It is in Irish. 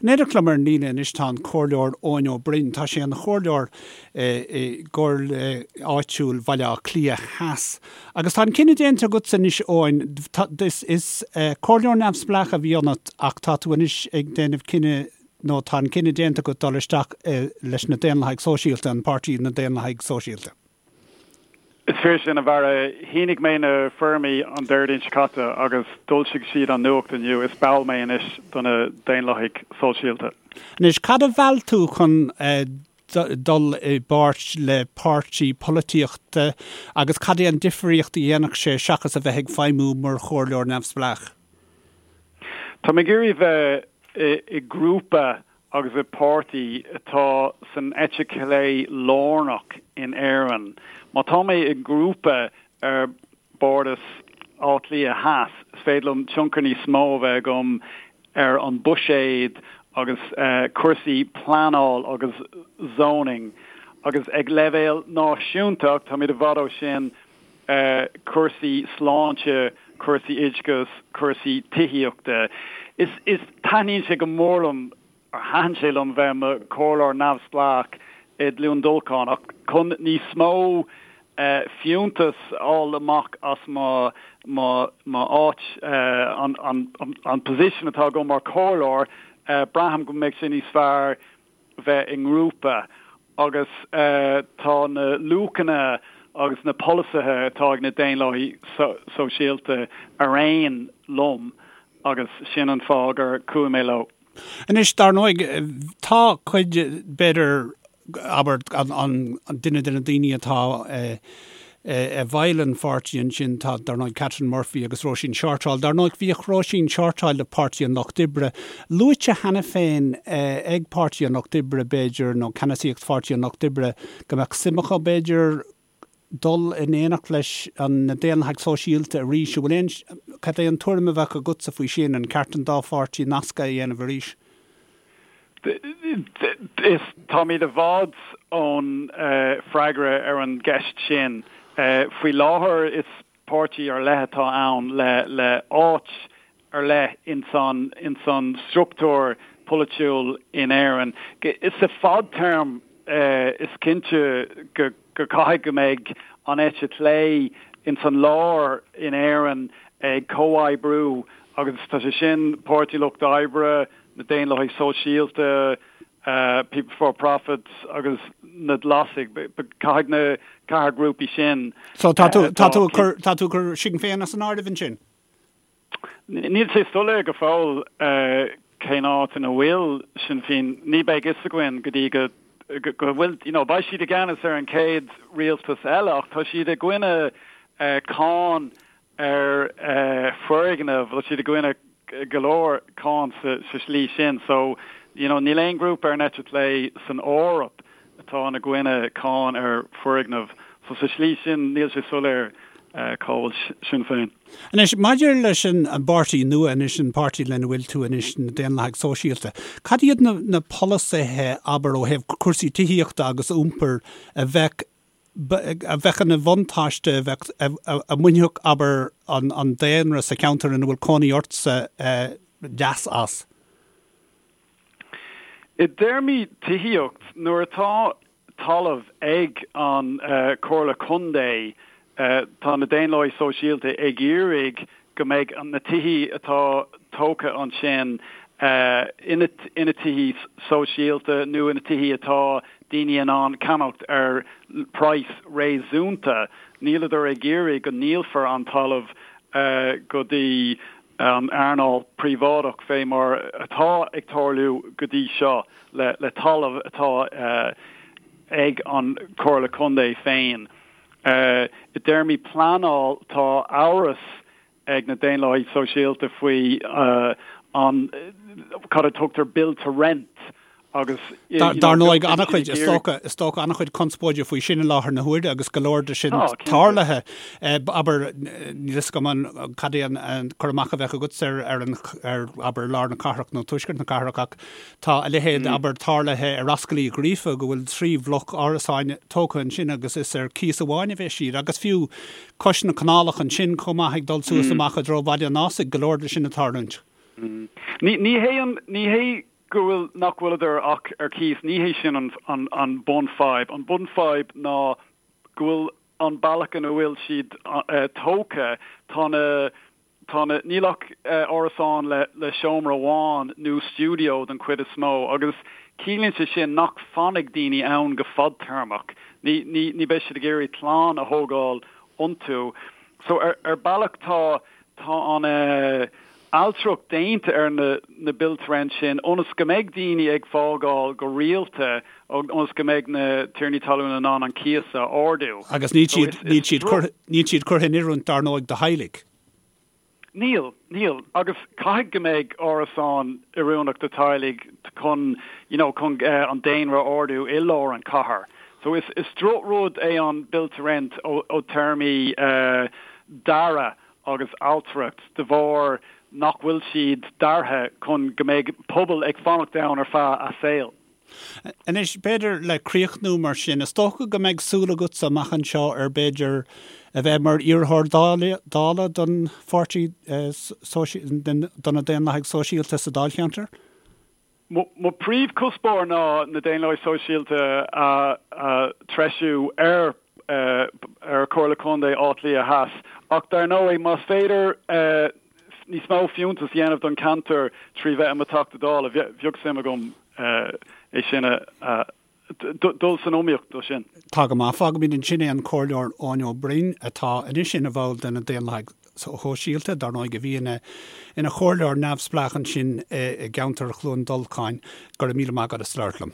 In éineacht liom ar an líne anois tá an Comhairleoir Eoin Ó Broin. Tá sé ina chomhairleoir i gComhairle Áitiúil Bhaile Átha Cliath Theas. Agus tá an cinneadh déanta agatsa anois Eoin, is comhairleoir neamhspleách a bhí ionat ach tá tú anois ag déanamh cinneadh nó tá an cinneadh déanta agat dul isteach leis na Daonlathaigh Sóisialta, an páirtí na Daonlathaigh Sóisialta. Is fíor sin, a Bharra. Shínigh mé na foirmí an Déardaoin seo caite agus d'fhoilsigh siad an nuacht inniu. Is ball mé anois do na Daonlathaigh Sóisialta. Anois, cad a mheall tú chun dul i bpáirt le páirtí polaitíochta agus cad é an difríocht a dhéanfadh sé seachas a bheith ag feidhmiú mar chomhairleoir neamhspleách? Tá mé ag iarraidh bheith i grúpa agus i páirtí atá san eite chlé lárnach in Éirinn. Má tá mé i ngrúpa ar Bhardas Átha Cliath Theas, is féidir liom tionchar níos mó a bheith agam ar an buiséad agus cúrsaí pleanáil agus zoning agus ag leibhéal náisiúnta, ach táimid i bhfad ó sin, cúrsaí sláinte, cúrsaí oideachais, cúrsaí tithíochta. Is is taitníonn sé go mór liom, or thaitin sé liom bheith i mo chomhairleoir neamhspleách i gCluain Dolcáin ach chun níos mó fiúntas a fháil amach as mo mo mo áit, an an an position atá agam mar chomhairleoir, braithim go mbeidh sé níos fearr bheith i ngrúpa agus tá na luachanna agus na polasaithe atá ag na Daonlathaigh Sóisialta ar aon liom agus sin an fáth gur chuaigh mé leo. Anois, dar ndóigh, tá cuid, b'fhéidir, abair, an duine de na daoine atá i bhfeighil an pháirtí ansin, tá, dar ndóigh, Catherine Murphy agus Róisín Shortall. Dar ndóigh, bhíodh Róisín Shortall le Páirtí an Lucht Oibre luaite cheana féin ag Páirtí an Lucht Oibre, b'fhéidir, nó ceannasaíocht Pháirtí an Lucht Oibre, go mbeadh suim acu, b'fhéidir, dul in éineacht leis na Daonlathaigh Sóisialta arís. An bhfuil aon, cad é an tuairim a bheadh agatsa faoi sin? An ceart an dá pháirtí nascadh a dhéanamh arís? Is táimid i bhfad ón freagra ar an gceist sin. Faoi láthair is páirtí ar leith atá ann le áit ar leith ins an struchtúr polaitiúil in Éirinn. Sa fadtéarma is cinnte go caithfidh go mbeidh an eite chlé ins an lár in Éirinn ag comhoibriú agus tá sé sin Páirtí Lucht Oibre, na Daonlathaigh Sóisialta, People Before Profit agus na Glasaigh. Caithfidh na ceathair grúpaí sin. So tá tú, tá tú ag cur, tá tú ag cur Sinn Féin as an áireamh ansin? Níl sé soiléir go fóill cén áit ina bhfuil Sinn Féin. Ní bheidh fhios againn go dtí go go bhfuil, you know, beidh siad i gceannas ar an chéad rialtas eile ach tá siad i gcoinne cáin ar foirgnimh, tá siad i gcoinne go leor cáin sa slí sin. So, you know, níl aon ghrúpa ar an eite chlé san Eoraip atá ina gcoinne cáin ar foirgnimh. So sa slí sin níl sé soiléir cá bhfuil Sinn Féin. Anois, maidir leis an bpáirtí nua anois, an páirtí lena bhfuil tú anois, na Daonlathaigh Sóisialta, cad iad na polasaithe, abair, ó thaobh cúrsaí tithíochta agus iompair a bheadh a bheadh ina bhuntáiste, a bheadh, a mbainfeadh, abair, an daonra sa cheantar ina bhfuil cónaí ortsa leas as? I dtéarmaí tithíocht, nuair atá talamh ag an Chomhairle Contae, tá na Daonlathaigh Sóisialta ag iarraidh go mbeidh na tithí atá tógtha ansin ina tithí sóisialta nó ina tithí atá daoine in ann ceannacht ar praghas réasúnta. Níleadar ag iarraidh go ndíolfar an talamh go dtí an earnáil príobháideach fé mar atá ag tarlú go dtí seo le talamh atá ag an Chomhairle Contae féin. I dtéarmaí pleanáil, tá amhras ag na Daonlathaigh Sóisialta faoi an cad a tugtar build to rent agus Dar ndóigh, an-chuid, is dócha, is dócha an-chuid conspóide faoi sin i láthair na huaire agus go leor de sin tarlaithe. Abair, níl fhios agam an cad é an cur amach a bheadh agatsa ar ar an ar abair lár na cathrach nó tuaisceart na cathrach ach Tá a leithéid, abair, tarlaithe ar Ascaill Uí Ghríofa go bhfuil 3 bhloc árasáin tógtha ansin agus is ar cíos amháin a bheas siad. Agus fiú cois na canálach ansin chomh maith ag dul suas amach i dtreo Bhaile an Ásaigh, go leor de sin ag tarlúint. Ní hé an, ní hé. go bhfuil, nach bhfuileadar ach ar cíos, ní hé sin an, an, an bunfhadhb. An bunfhadhb ná go bhfuil an bealach ina bhfuil siad tógtha, tá na, tá na, níl ach árasáin le, le seomra amháin nó stiúideo den chuid is mó agus ciallaíonn sé sin nach fanfaidh daoine ann go fadtéarmach. Ní, ní, ní beidh siad ag iarraidh clann a thógáil iontu. So ar, ar bealach tá, tá an ailtireacht déanta ar na na build to rent sin ionas go mbeidh daoine ag fágáil go rialta ionas go mbeidh na tiarnaí talún in ann an cíos a ardú. Agus níl siad, níl siad curtha, níl siad curtha in oiriúint dar ndóigh do theaghlaigh. Níl, níl. Agus caithfidh go mbeidh árasáin oiriúnach do teaghlaigh chun, you know, chun an daonra a ardú i lár an chathair. So is, is drochrud é an build to rent ó, ó téarmaí dearadh agus ailtireacht de bharr nach bhfuil siad deartha chun go mbeidh pobal ag fanacht ann ar feadh a saoil. Anois, b'fhéidir le críochnú mar sin, is dócha go mbeidh súil agatsa amach anseo ar b'fhéidir a bheith mar iarrthóir Dála don pháirtí do na Daonlathaigh Sóisialta sa dáilcheantar? Mo phríomhchuspóir ná na Daonlathaigh Sóisialta a threisiú ar ar Chomhairle Contae Átha Cliath Theas ach dar ndóigh más féidir níos mó fiúntas a dhéanamh don cheantar trí bheith i mo Theachta Dála, bheadh suim agam é sin a dul san iomaíocht dó sin. Tá go maith. Fágfaimid ansin é an Comhairleoir Eoin Ó Broin atá anois ina bhall de na Daonlathaigh Shóisialta, dar ndóigh, a bhí ina ina chomhairleoir neamhspleách ansin i gceantar Chluain Dolcáin. Go raibh míle maith agat as labhairt liom.